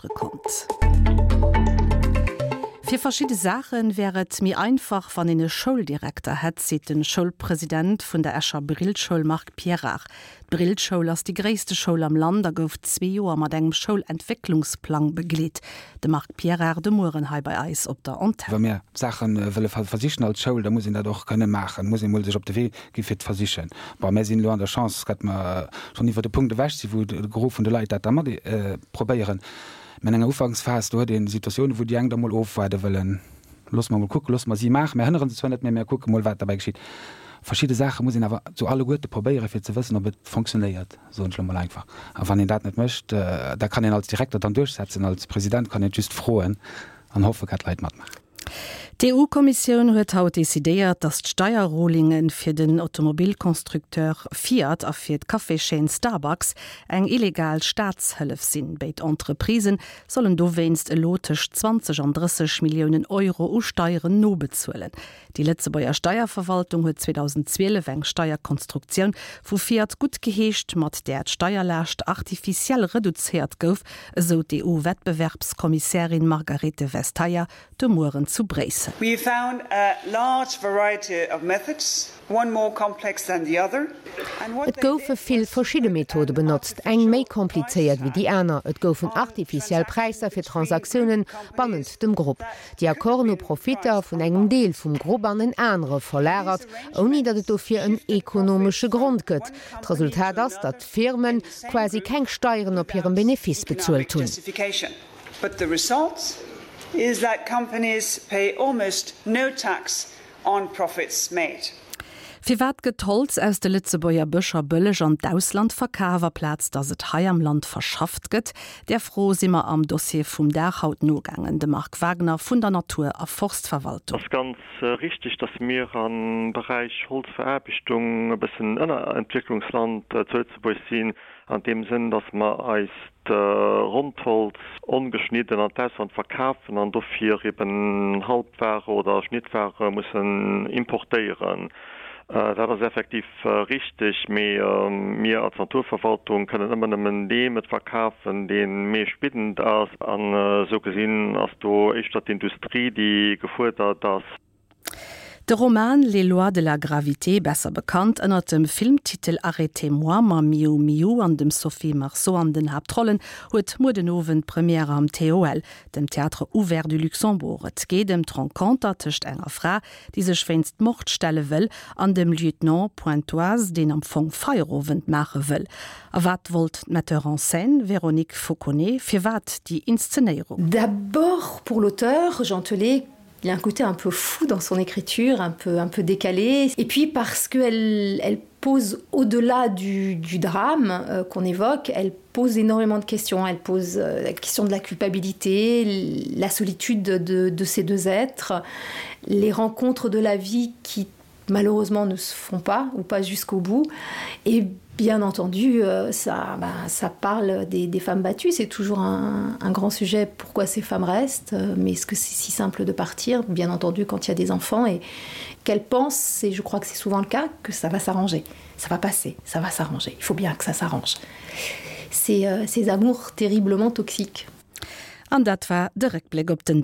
Konnt. Fir verschidde Saache wär et méi einfach, wann een e Schouldirekter hätt, seet de Schoulpresident vun der Escher Brillschoul Marc Pierrard. D'Brillschoul ass déi gréisste Schoul am Land a gouf zwee Joer mat engem Schoulentwécklungsplang begleet. De Marc Pierrard de Mueren hei bei eis op der Antenn. Wa mir Saache wëlle versichen als Schoul, da muss een dat och kënne maachen, muss een emol sech op de Wee gi fir d'Versichen. Bon, mär sinn elo an der Chance, datt mer schonn iwwer de Punkt ewech sinn, wou de Gros vun de Leit dat da mat probéieren. Mä an enger Ufanksphas, do huet ee Situatiounen, wou déi eng da mol ofwaarde wëllen. Loosse mer mol kucken, loosse mer si maachen. Mär hënnere se zwar net, mä mär kucke mol, wat derbäi geschitt. Verschidde Saache muss een awer zu alleguerte probéieren, fir ze wëssen, ob et fonctionnéiert, soen ech elo mol einfach. A wann een dat net mécht, da kann een als Direkter dann duerchsetzen, als President kann een et just froen an hoffe, datt d'Leit matmaachen. D'EU-Kommissioun huet haut decidéiert, datt d'Steierrulinge fir den Automobilconstructeur Fiat a fir d'Caféschaîne Starbucks eng illegal Staatshëllef sinn. Béid Entreprisë sollen dowéinst elo tëscht 20 an 30 Milliounen Euro u Steieren nobezuelen. Déi Lëtzebuerger Steierverwaltung huet 2012 eng Steierkonstruktioun vu Fiat guttgeheescht, mat där d'Steierlaascht artificiell reduzéiert gouf, esou d'EU-Wettbewerbskommissärin Margarethe Vestager de Mueren zu Bréissel. We found a large variety of methods, one more complex than the other, and what Et they goufe did vill was verschidde put Methode benotzt, artificial eng méi komplizéiert price wéi déi tags aner. Et goufen on artificiell Präisser transactions fir between group Transaktiounen companies bannent dem Grupp. that Déi could have Accorden hu been Profitter priced vun on engem Deel market. vum Grupp an en anere These verlagert, ouni datt et arrangements dofir en shifted ekonomesche profits from Grond gëtt. one company D'Resultat to ass, another datt d'Firme in the same quasi group keng Steieren op hirem without Benefice economic bezuelt hunn. justification. But the result is that companies pay almost no tax on profits made. Firwat gëtt d'Holz aus de Lëtzebuerger Bëscher bëlleg an d'Ausland verkaf, aplaz datt et hei am Land verschafft gëtt? Där Fro si mer am Dossier vum Dag haut nogaangen. De Marc Wagner vun der Natur a Forstverwaltung. Ass ganz richteg, dass mir am Beräich Holzveraarbechtung e bëssen Ënnerentwécklungsland zu Lëtzebuerg sinn, an deem Sënn, dass mer eist Rondholz ongeschnidden an d'Ausland verkafen an dofir eben Halbware oder Schnittware mussen importéieren. Dat ass effektiv richteg, mee mir als Naturverwaltung kënnen ëmmer nëmmen deem et verkafen, dee meeschtbiddend ass. An esou gesinn ass do éischter d'Industrie, déi gefuerdert ass. De Roman Les lois de la gravité, besser bekannt ënner dem Filmtitel Arrêtez-moi mam Miou Miou an dem Sophie Marceau an den Haaptrollen, huet muer den Owend Première am TOL, dem Théâtre Ouvert du Luxembourg. Et geet ëm d'Renconter tëscht enger Fra, déi sech wéinst Mord stelle wëll, an dem Lieutenant Pointoise, deen am Fong Feierowend maache wëll. A wat wollt d'Metteur en scène Véronique Fauconnet? Firwat déi Inszenéierung? D'abord pour l'auteur, Jean Telet, il a un côté un peu fou dans son écriture, un peu, un peu décalé. Et puis parce qu'elle elle pose au-delà du, du drame euh, qu'on évoque, elle pose énormément de questions. Elle pose euh, la question de la culpabilité, la solitude de, de ces deux êtres, les rencontres de la vie qui malheureusement ne se font pas ou pas jusqu'au bout. Et bien entendu, euh, ça, ben, ça parle des, des femmes battues. C'est toujours un, un grand sujet pourquoi ces femmes restent, euh, mais est-ce que c'est si simple de partir Bien entendu, quand il y a des enfants et qu'elles pensent, et je crois que c'est souvent le cas, que ça va s'arranger, ça va passer, ça va s'arranger. Il faut bien que ça s'arrange. C'est euh, ces amours terriblement toxiques. An dat war de Réckbléck op den.